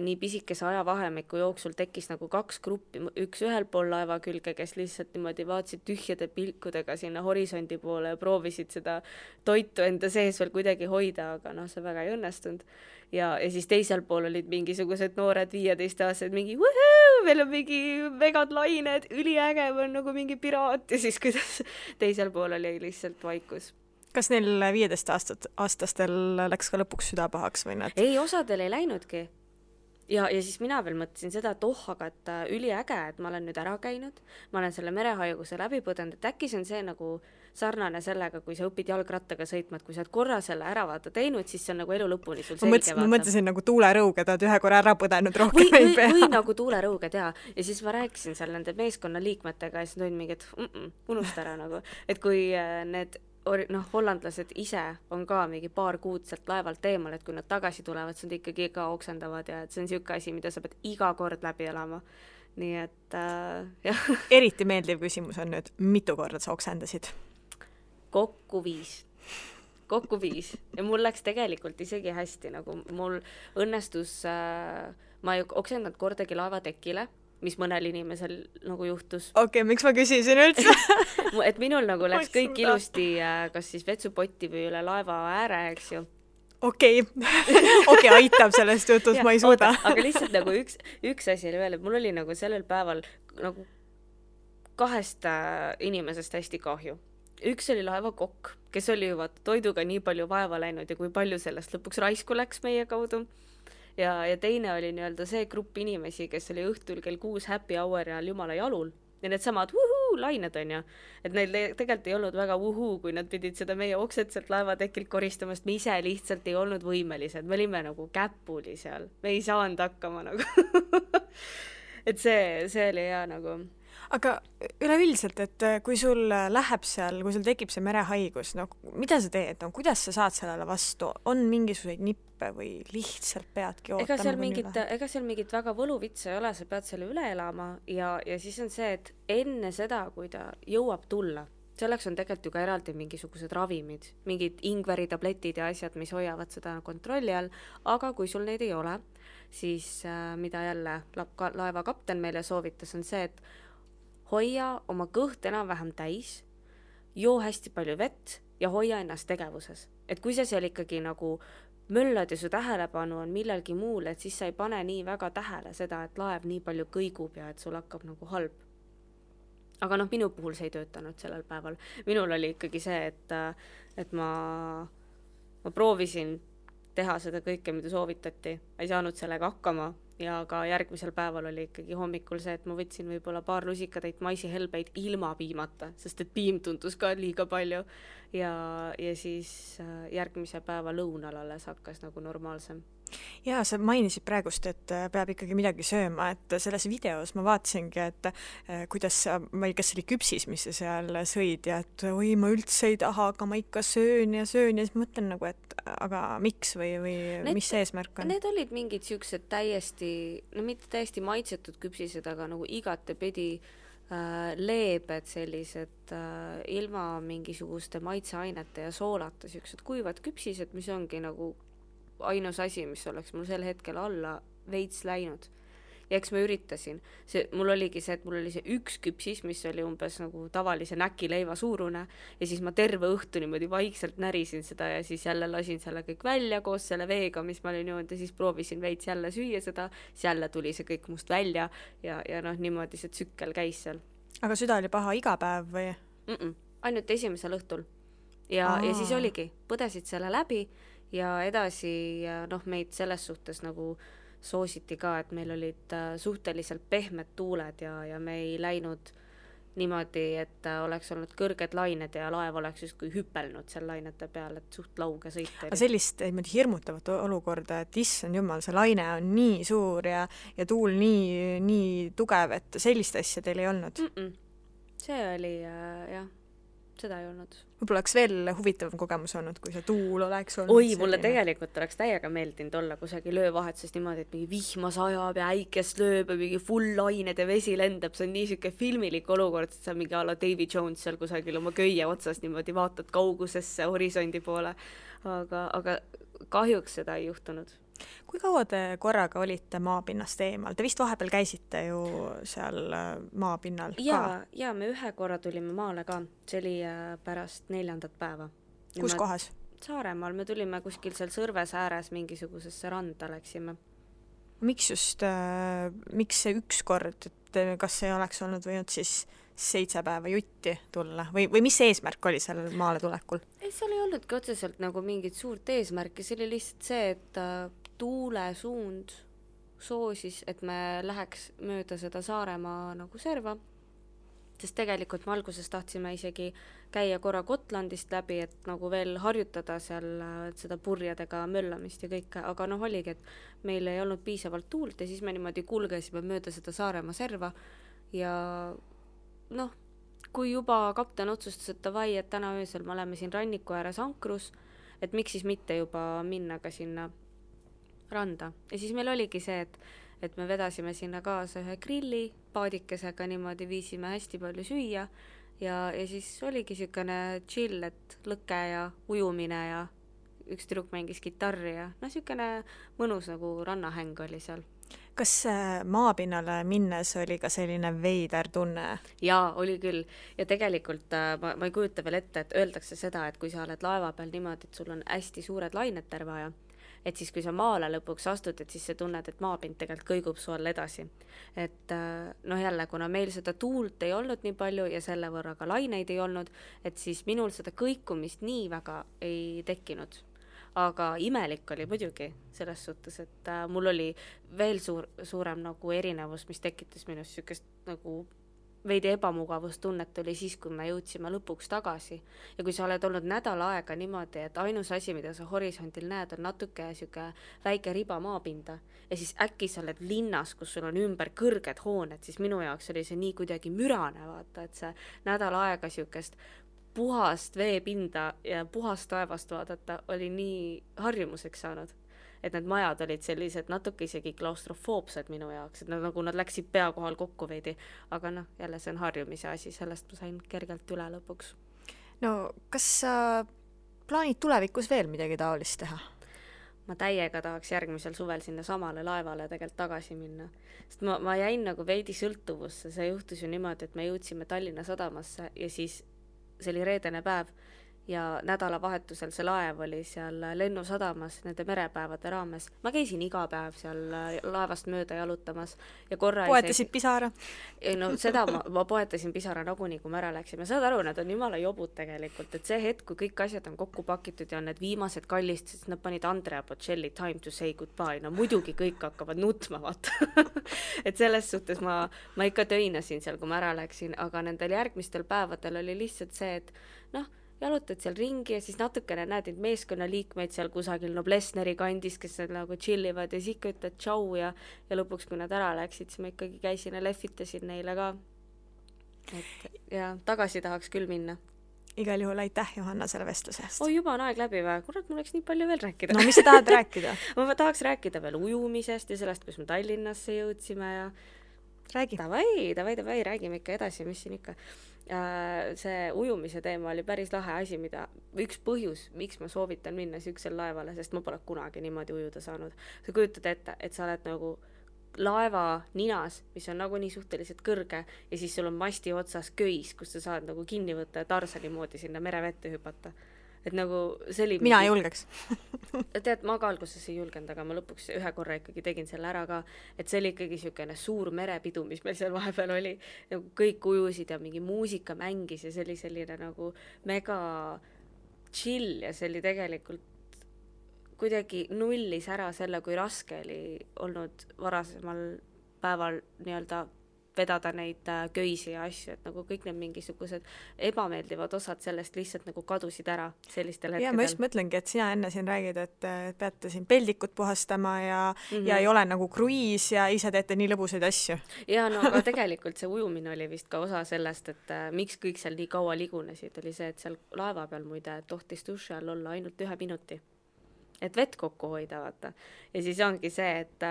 Speaker 3: nii pisikese ajavahemiku jooksul tekkis nagu 2 gruppi, üks ühel pool laeva külge, kes lihtsalt niimoodi vaatasid tühjade pilkudega sinna horisondi poole ja proovisid seda toitu enda sees veel kuidagi hoida, aga see väga ei õnnestunud. Ja siis teisel pool olid mingisugused noored 15-aastased, mingi wuhuu, meil on mingi megad lained, üliäge, on nagu mingi piraat ja siis kuidas teisel pool oli lihtsalt vaikus.
Speaker 2: Kas neil 15-aastastel läks ka lõpuks süda pahaks või nad?
Speaker 3: Ei, osadel ei läinudki. Ja siis mina veel mõtlesin seda, et aga et üliäge, et ma olen nüüd ära käinud, ma olen selle merehaiguse läbi põdenud, et äkki see on see nagu sarnane sellega, kui sa õpid jalgrattaga sõitma, et kui sa oled korra selle ära teinud, siis see on nagu elu lõpuni sul selge.
Speaker 2: Ma mõtlesin nagu tuulerõuge, ta oled ühe korra ära põdenud rohkem ei pea.
Speaker 3: Või nagu tuulerõuge teha. Ja siis ma rääkisin seal nende meeskonna liikmetega ja siis tulin mingi, et unusta ära nagu. Et kui need hollandlased ise on ka mingi paar kuud sealt laevalt eemal, et kui nad tagasi tulevad, siis nad ikkagi ka oksendavad ja et see on siuke asi, mida sa pead iga kord läbi elama. Nii et jah.
Speaker 2: Eriti meeldiv küsimus on nüüd, mitu korda sa oksendasid?
Speaker 3: Kokku 5. Ja mul läks tegelikult isegi hästi, nagu mul õnnestus, ma ei oksendanud kordagi laevatekile, mis mõnel inimesel nagu juhtus.
Speaker 2: Okei, miks ma küsisin üldse?
Speaker 3: Et minul nagu läks kõik ilusti kas siis vetsupotti või üle laeva ääre, eks ju.
Speaker 2: Okei, aitab sellest jutust, ma ei suuda.
Speaker 3: Aga lihtsalt nagu üks asi oli veel, et mul oli nagu sellel päeval nagu 2 inimesest hästi kahju. Üks oli laevakokk, kes oli juba toiduga nii palju vaeva läinud ja kui palju sellest lõpuks raisku läks meie kaudu. Ja teine oli nii-öelda see grupp inimesi, kes oli õhtul kell 6 happy hour ja jumala jalul. Ja need samad lained on ju. Et neil tegelikult ei olnud väga kui nad pidid seda meie oksetselt laevatekilt koristamast. Me ise lihtsalt ei olnud võimelised. Me olime nagu käpuli seal. Me ei saanud hakkama nagu. Et see oli hea nagu.
Speaker 2: Aga üleüldiselt, et kui sul läheb seal, kui sul tekib see merehaigus, mida sa teed? Kuidas sa saad sellele vastu? On mingisuguseid nippe või lihtsalt peadki ootama?
Speaker 3: Ega seal mingit väga võluvitsa ei ole, sa pead selle üle elama ja siis on see, et enne seda, kui ta jõuab tulla, selleks on tegelikult ju ka eraldi mingisugused ravimid, mingid ingveritabletid ja asjad, mis hoiavad seda kontrolli all, aga kui sul neid ei ole, siis mida jälle laevakapten meile soovitas, on see, et hoia oma kõht enam-vähem täis, joo hästi palju vett ja hoia ennast tegevuses. Et kui sa seal ikkagi nagu möllad ja su tähelepanu on millelgi muul, et siis sa ei pane nii väga tähele seda, et laev nii palju kõigub ja et sul hakkab nagu halb. Aga minu puhul see ei töötanud sellel päeval. Minul oli ikkagi see, et ma proovisin teha seda kõike, mida soovitati. Ei saanud sellega hakkama. Ja ka järgmisel päeval oli ikkagi hommikul see, et ma võtsin võib-olla paar lusikatäit maisihelbeid ilma piimata, sest et piim tundus ka liiga palju. Ja siis järgmise päeva lõunal alles hakkas nagu normaalsem.
Speaker 2: Ja sa mainisid praegust, et peab ikkagi midagi sööma, et selles videos ma vaatasingi, et kuidas ma ei kas oli küpsis, mis sa seal sõid ja et oi, ma üldse ei taha, aga ma ikka söön ja siis mõtlen nagu, et aga miks või mis see eesmärk on?
Speaker 3: Need olid mingid siuksed mitte täiesti maitsetud küpsised, aga nagu igatepidi leebed sellised ilma mingisuguste maitseainete ja soolata siuksed kuivad küpsised, mis ongi nagu ainus asi, mis oleks mul sel hetkel alla veits läinud. ja eks ma üritasin. Mul oligi see, et mul oli see üks küpsis, mis oli umbes nagu tavalise näkileiva suurune ja siis ma terve õhtu niimoodi vaikselt närisin seda ja siis jälle lasin selle kõik välja koos selle veega, mis ma olin joonud ja siis proovisin veits jälle süüa seda, siis jälle tuli see kõik must välja ja noh, niimoodi see tsükkel käis seal.
Speaker 2: Aga süda oli paha iga päev või?
Speaker 3: Ainult esimesel õhtul. Ja siis oligi, põdesid selle läbi ja edasi noh, meid selles suhtes nagu soositi ka, et meil olid suhteliselt pehmed tuuled ja me ei läinud niimoodi, et oleks olnud kõrged lained ja laev oleks justkui hüppelnud seal lainete peal, et suht lauge sõit.
Speaker 2: Aga sellist hirmutavat olukorda, et issand jumal, see laine on nii suur ja tuul nii tugev, et sellist asja teil ei olnud?
Speaker 3: See oli jah, seda ei olnud.
Speaker 2: Võib-olla oleks veel huvitavam kogemus olnud, kui see tuul oleks olnud.
Speaker 3: Oi, mulle tegelikult oleks täiega meeldinud olla kusagil öövahetuses niimoodi, et mingi vihma sajab ja äikest lööb ja mingi full lained ja vesi lendab. See on nii siuke filmilik olukord, et sa mingi alla Davy Jones seal kusagil oma köie otsas niimoodi vaatad kaugusesse horisondi poole. Aga kahjuks seda ei juhtunud.
Speaker 2: Kui kaua te korraga olite maapinnast eemal? Te vist vahepeal käisite ju seal maapinnal ka?
Speaker 3: Ja me ühe korra tulime maale ka. See oli pärast 4. päeva.
Speaker 2: Kus kohas?
Speaker 3: Saaremaal. Me tulime kuskil seal Sõrves ääres mingisugusesse randa läksime.
Speaker 2: Miks see üks kord, et kas see oleks olnud võinud siis 7 päeva jutti tulla või mis eesmärk oli sellel maale tulekul?
Speaker 3: Ei, seal ei olnudki otseselt nagu mingit suurt eesmärki, see oli lihtsalt see, et tuule suund soosis, et me läheks mööda seda Saaremaa nagu serva, sest tegelikult me alguses tahtsime isegi käia korra Gotlandist läbi, et nagu veel harjutada seal seda purjadega möllamist ja kõike, aga noh oligi, et meil ei olnud piisavalt tuult ja siis me niimoodi kulgesime mööda seda Saaremaa serva ja noh, kui juba kapten otsustas, et davai, et täna öösel me oleme siin ranniku ääres ankrus, et miks siis mitte juba minna ka sinna randa. Ja siis meil oligi see, et me vedasime sinna kaasa ühe grilli paadikesega, niimoodi viisime hästi palju süüa ja siis oligi siukene chill, et lõke ja ujumine ja üks tüdruk mängis kitarri ja noh, siukene mõnus nagu rannahäng oli seal.
Speaker 2: Kas maapinnale minnes oli ka selline veider tunne?
Speaker 3: Jaa, oli küll. Ja tegelikult ma ei kujuta veel ette, et öeldakse seda, et kui sa oled laeva peal niimoodi, et sul on hästi suured lained terve aja, et siis kui sa maale lõpuks astud, et siis sa tunned, et maapind tegelikult kõigub su all edasi. Et noh jälle, kuna meil seda tuult ei olnud nii palju ja selle võrra ka laineid ei olnud, et siis minul seda kõikumist nii väga ei tekkinud. Aga imelik oli muidugi selles suhtes, et mul oli veel suurem nagu erinevus, mis tekitas minust sükest nagu veidi ebamugavustunnet oli siis, kui me jõudsime lõpuks tagasi. Ja kui sa oled olnud nädal aega niimoodi, et ainus asi, mida sa horisondil näed, on natuke süke väike riba maapinda ja siis äkki sa oled linnas, kus sul on ümber kõrged hooned, siis minu jaoks oli see nii kuidagi mürane vaata, et see nädal aega sükest puhast veepinda ja puhast taevast vaadata oli nii harjumuseks saanud. Et need majad olid sellised natuke isegi klaustrofoobsed minu jaoks, et nagu nad läksid pea kohal kokku veidi, aga noh, jälle see on harjumise asi, sellest ma sain kergelt üle lõpuks.
Speaker 2: No, kas sa plaanid tulevikus veel midagi taolist teha?
Speaker 3: Ma täiega tahaks järgmisel suvel sinna samale laevale tegelikult tagasi minna. Sest ma jäin nagu veidi sõltuvusse, see juhtus ju niimoodi, et me jõudsime Tallinna sadamasse ja siis see oli reedene päev ja nädalavahetusel see laev oli seal lennusadamas nende merepäevade raames. Ma käisin iga päev seal laevast mööda jalutamas ja korra
Speaker 2: poetasid pisara?
Speaker 3: No seda ma poetasin pisara nagunii, kui me ära läksime. Saad aru, nad on jumala jobud tegelikult, et see hetk, kui kõik asjad on kokku pakitud ja on need viimased kallist, sest nad panid Andrea Bocelli Time to say goodbye, no muidugi kõik hakkavad nutma, vaata. Et selles suhtes ma ikka töinasin seal, kui ma ära läksin, aga nendel järgmistel päevadel oli lihtsalt see, et noh, jalutad seal ringi ja siis natukene näed neid meeskonnaliikmeid seal kusagil Noblessneri kandis, kes nagu chillivad ja siis ikka ütled tšau ja lõpuks, kui nad ära läksid, siis ma ikkagi käisin ja lehvitasin neile ka. Et ja tagasi tahaks küll minna.
Speaker 2: Igal juhul aitäh, Johanna, selle vestlusest.
Speaker 3: Juba on aeg läbi või? Kurat, mul oleks nii palju veel rääkida.
Speaker 2: No mis sa tahad rääkida?
Speaker 3: Ma tahaks rääkida veel ujumisest ja sellest, kus me Tallinnasse jõudsime ja
Speaker 2: räägi.
Speaker 3: Davai, räägime ikka edasi, mis siin ikka. See ujumise teema oli päris lahe asi, üks põhjus, miks ma soovitan minna süksel laevale, sest ma pole kunagi niimoodi ujuda saanud. Sa kujutad ette, et sa oled nagu laeva ninas, mis on nagunii suhteliselt kõrge ja siis sul on masti otsas köis, kus sa saad nagu kinni võtta ja Tarsani moodi sinna merevette hüpata. Et nagu see oli
Speaker 2: mina ei julgeks.
Speaker 3: Tead, ma ka alguses ei julgenud, aga ma lõpuks ühe korra ikkagi tegin selle ära ka, et see oli ikkagi siukene suur merepidu, mis meil seal vahepeal oli, nagu kõik ujusid ja mingi muusika mängis ja see oli selline nagu mega chill ja see oli tegelikult kuidagi nullis ära selle, kui raske oli olnud varasemal päeval nii-öelda vedada neid köisi ja asju, et nagu kõik need mingisugused ebameeldivad osad sellest lihtsalt nagu kadusid ära sellistel hetkedel.
Speaker 2: Ja ma just mõtlengi, et sina enne siin räägid, et peate siin peldikut puhastama ja ei ole nagu kruiis ja ise teete nii lõbusaid asju.
Speaker 3: Ja no aga tegelikult see ujumine oli vist ka osa sellest, et miks kõik seal nii kaua ligunesid, oli see, et seal laeva peal muide tohtis duši all olla ainult 1 minuti. Et vett kokku hoida, vaata. Ja siis ongi see, et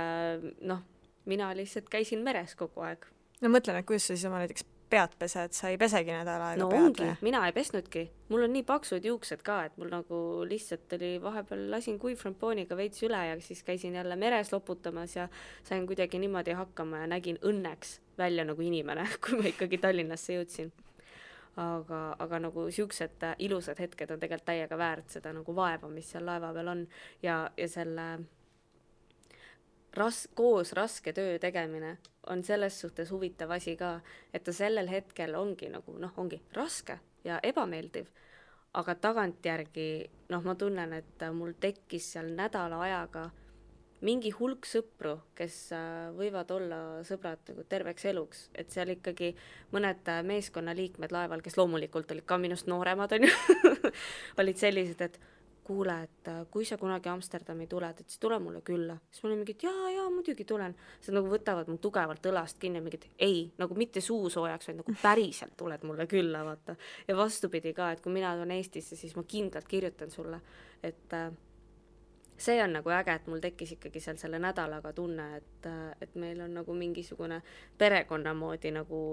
Speaker 3: mina lihtsalt käisin meres kogu aeg.
Speaker 2: No mõtlen, et kuidas sa siis oma näiteks pead pesed, sa ei pesegi nädal aega
Speaker 3: no
Speaker 2: pead?
Speaker 3: Ongi, mina ei pesnudki. Mul on nii paksud juuksed ka, et mul nagu lihtsalt oli vahepeal lasin kuivframpooniga veits üle ja siis käisin jälle meres loputamas ja sain kuidagi niimoodi hakkama ja nägin õnneks välja nagu inimene, kui ma ikkagi Tallinnasse jõudsin. Aga nagu siuksed ilusad hetked on tegelikult täiega väärt seda nagu vaeva, mis seal laeva peal on ja selle koos raske töö tegemine on selles suhtes huvitav asi ka, et ta sellel hetkel ongi nagu, ongi raske ja ebameeldiv, aga tagantjärgi, ma tunnen, et mul tekkis seal nädala ajaga mingi hulk sõpru, kes võivad olla sõbrad nagu terveks eluks, et seal ikkagi mõned meeskonnaliikmed laeval, kes loomulikult olid ka minust nooremad, on ju, olid sellised, et kuule, et kui sa kunagi Amsterdami tuled, et siis tule mulle külla. Siis ma olin mingid, jaa, muidugi tulen. Sa nagu võtavad mu tugevalt õlast kinni ja mingid, ei, nagu mitte suusoojaks, vaid nagu päriselt tuled mulle külla, vaata. Ja vastupidi ka, et kui mina tulen Eestisse, siis ma kindlalt kirjutan sulle, et see on nagu äge, et mul tekkis ikkagi seal selle nädalaga tunne, et meil on nagu mingisugune perekonna moodi nagu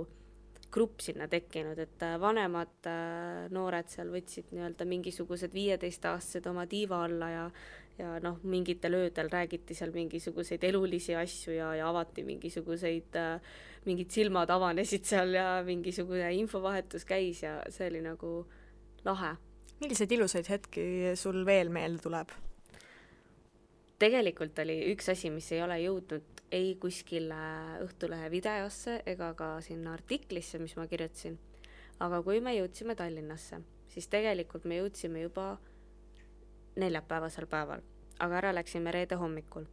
Speaker 3: grupp sinna tekkinud, et vanemad noored seal võtsid nii-öelda mingisugused 15-aastased oma tiiva alla ja mingitel öödel räägiti seal mingisuguseid elulisi asju ja avati mingid silmad avanesid seal ja mingisugune infovahetus käis ja see oli nagu lahe.
Speaker 2: Milliseid ilusaid hetki sul veel meelde tuleb?
Speaker 3: Tegelikult oli üks asi, mis ei ole jõudnud ei kuskil Õhtulehe videosse ega ka sinna artiklisse, mis ma kirjutasin. Aga kui me jõudsime Tallinnasse, siis tegelikult me jõudsime juba neljapäevasel päeval, aga ära läksime reede hommikul.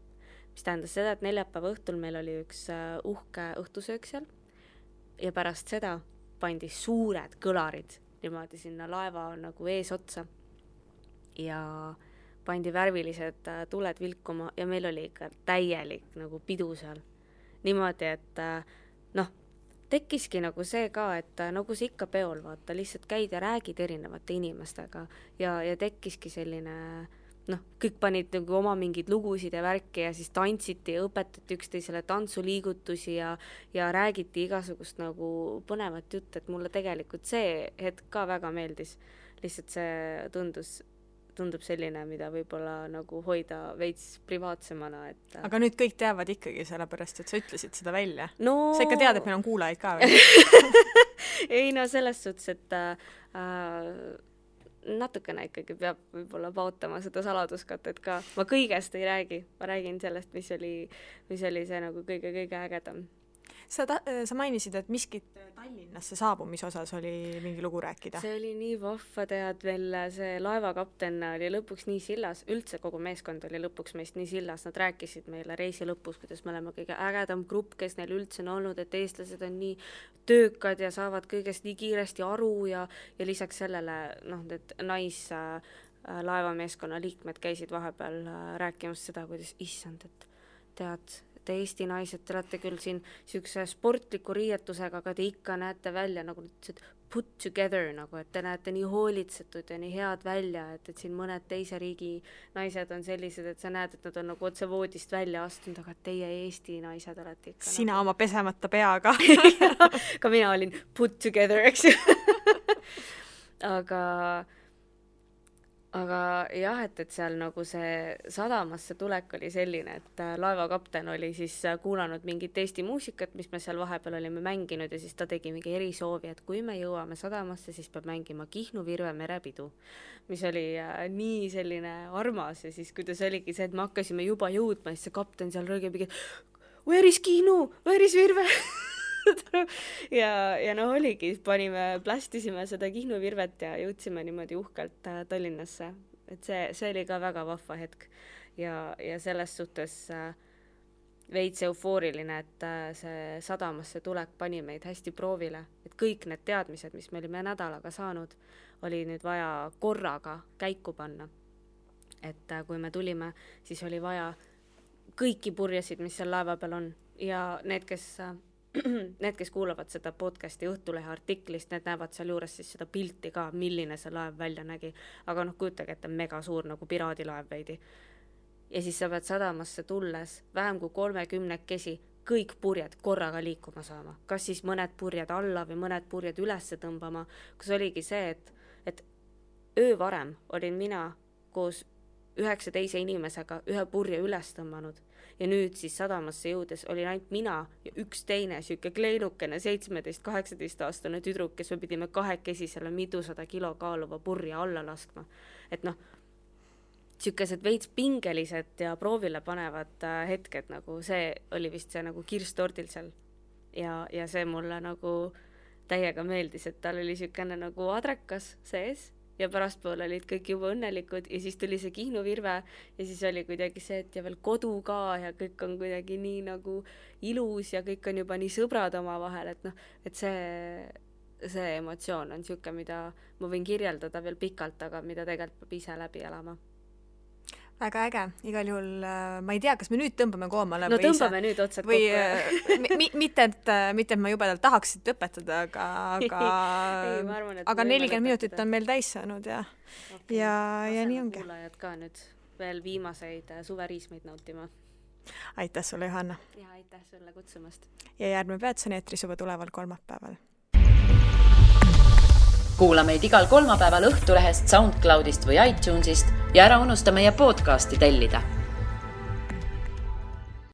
Speaker 3: Mis tähendas seda, et neljapäeva õhtul meil oli üks uhke õhtusöök seal ja pärast seda pandi suured kõlarid niimoodi sinna laeva nagu ees otsa ja pandi värvilised tuled vilkuma ja meil oli ikka täielik nagu pidu seal. Niimoodi, et tekkiski nagu see ka, et nagu see ikka peol, vaata, lihtsalt käid ja räägid erinevate inimestega ja tekkiski selline, kõik panid nagu oma mingid lugusid ja värki ja siis tantsiti ja õpetati üksteisele tantsuliigutusi ja räägiti igasugust nagu põnevat jutt, et mulle tegelikult see hetk ka väga meeldis. Lihtsalt see tundub selline, mida võib-olla nagu hoida veits privaatsemana. Et
Speaker 2: aga nüüd kõik teavad ikkagi sellepärast, et sa ütlesid seda välja.
Speaker 3: No
Speaker 2: sa ikka tead, et meil on kuulajaid ka veel.
Speaker 3: ei selles suhtes, et natukene ikkagi peab võib-olla paotama seda saladuskatet ka. Ma kõigest ei räägi. Ma räägin sellest, mis oli see nagu kõige ägedam.
Speaker 2: Sa mainisid, et miskit Tallinnasse saabumise osas oli mingi lugu rääkida.
Speaker 3: See oli nii vahva, tead veel, see laevakapten oli lõpuks nii sillas, üldse kogu meeskond oli lõpuks meist nii sillas, nad rääkisid meile reisi lõpus, kuidas me oleme kõige ägedam grupp, kes neil üldse on olnud, et eestlased on nii töökad ja saavad kõigest nii kiiresti aru ja lisaks sellele, need laevameeskonna liikmed käisid vahepeal rääkimas seda, kuidas issand, et tead, te Eesti naised, te olete küll siin siukse sportliku riietusega, aga te ikka näete välja nagu put together, nagu, et te näete nii hoolitsetud ja nii head välja, et siin mõned teise riigi naised on sellised, et sa näed, et nad on nagu otse voodist välja astunud, aga teie Eesti naised olete ikka
Speaker 2: sina nagu oma pesemata peaga.
Speaker 3: Ka mina olin put together, eks ju. Aga aga jah, et seal nagu see sadamasse tulek oli selline, et laevakapten oli siis kuulanud mingit Eesti muusikat, mis me seal vahepeal olime mänginud ja siis ta tegi mingi erisoovi, et kui me jõuame sadamasse, siis peab mängima Kihnu Virve merepidu, mis oli nii selline armas ja siis kuidas oligi see, et me hakkasime juba jõudma, siis see kapten seal rõõgib, where is Kihnu, where is Virve? ja no oligi, plästisime seda Kihnu Virvet ja jõudsime niimoodi uhkelt Tallinnasse, et see oli ka väga vahva hetk ja selles suhtes veits eufooriline, et see sadamasse tulek pani meid hästi proovile, et kõik need teadmised, mis me olime nädalaga saanud, oli nüüd vaja korraga käiku panna. Et kui me tulime, siis oli vaja kõiki purjesid, mis seal laeva peal on ja need, kes kuulavad seda podcasti Õhtulehe artiklist, need näevad seal juures siis seda pilti ka, milline see laev välja nägi. Aga kujutage, et on mega suur nagu piraadilaev veidi. Ja siis sa pead sadamasse tulles vähem kui 30 kõik purjed korraga liikuma saama. Kas siis mõned purjed alla või mõned purjed ülesse tõmbama. Kus oligi see, et öö varem olin mina koos 9 teise inimesega ühe purje üles tõmbanud. Ja nüüd siis sadamasse jõudes oli ainult mina ja üks teine süüke kleinukene 17-18 aastane tüdruk, kes me pidime 2 selle 200 kilo kaaluva purja alla laskma. Et sükesed veits pingelised ja proovile panevad hetked, nagu see oli vist see nagu kirstordil seal. Ja see mulle nagu täiega meeldis, et tal oli sükene nagu adrekas sees. Ja pärastpool olid kõik juba õnnelikud ja siis tuli see Kihnu Virve ja siis oli kuidagi see, et ja veel kodu ka ja kõik on kuidagi nii nagu ilus ja kõik on juba nii sõbrad oma vahel, et see emotsioon on süüke, mida ma võin kirjeldada veel pikalt, aga mida tegelikult peab ise läbi elama.
Speaker 2: Väga äge, igal juhul ma ei tea, kas me nüüd tõmbame koomale
Speaker 3: no tõmbame ise. Nüüd otsad
Speaker 2: või kokku. mitte, et ma jubedalt tahaksid õpetada, aga 40 minutit on meil täis saanud ja nii ongi.
Speaker 3: Kuulajad ka nüüd veel viimaseid suveriismeid nautima.
Speaker 2: Aitäh sulle, Johanna.
Speaker 3: Ja aitäh sulle kutsumast.
Speaker 2: Ja järgmine Peatson eetris juba tuleval kolmapäeval.
Speaker 1: Kuula meid igal kolmapäeval Õhtulehest, SoundCloudist või iTunesist ja ära unusta meie podcasti tellida.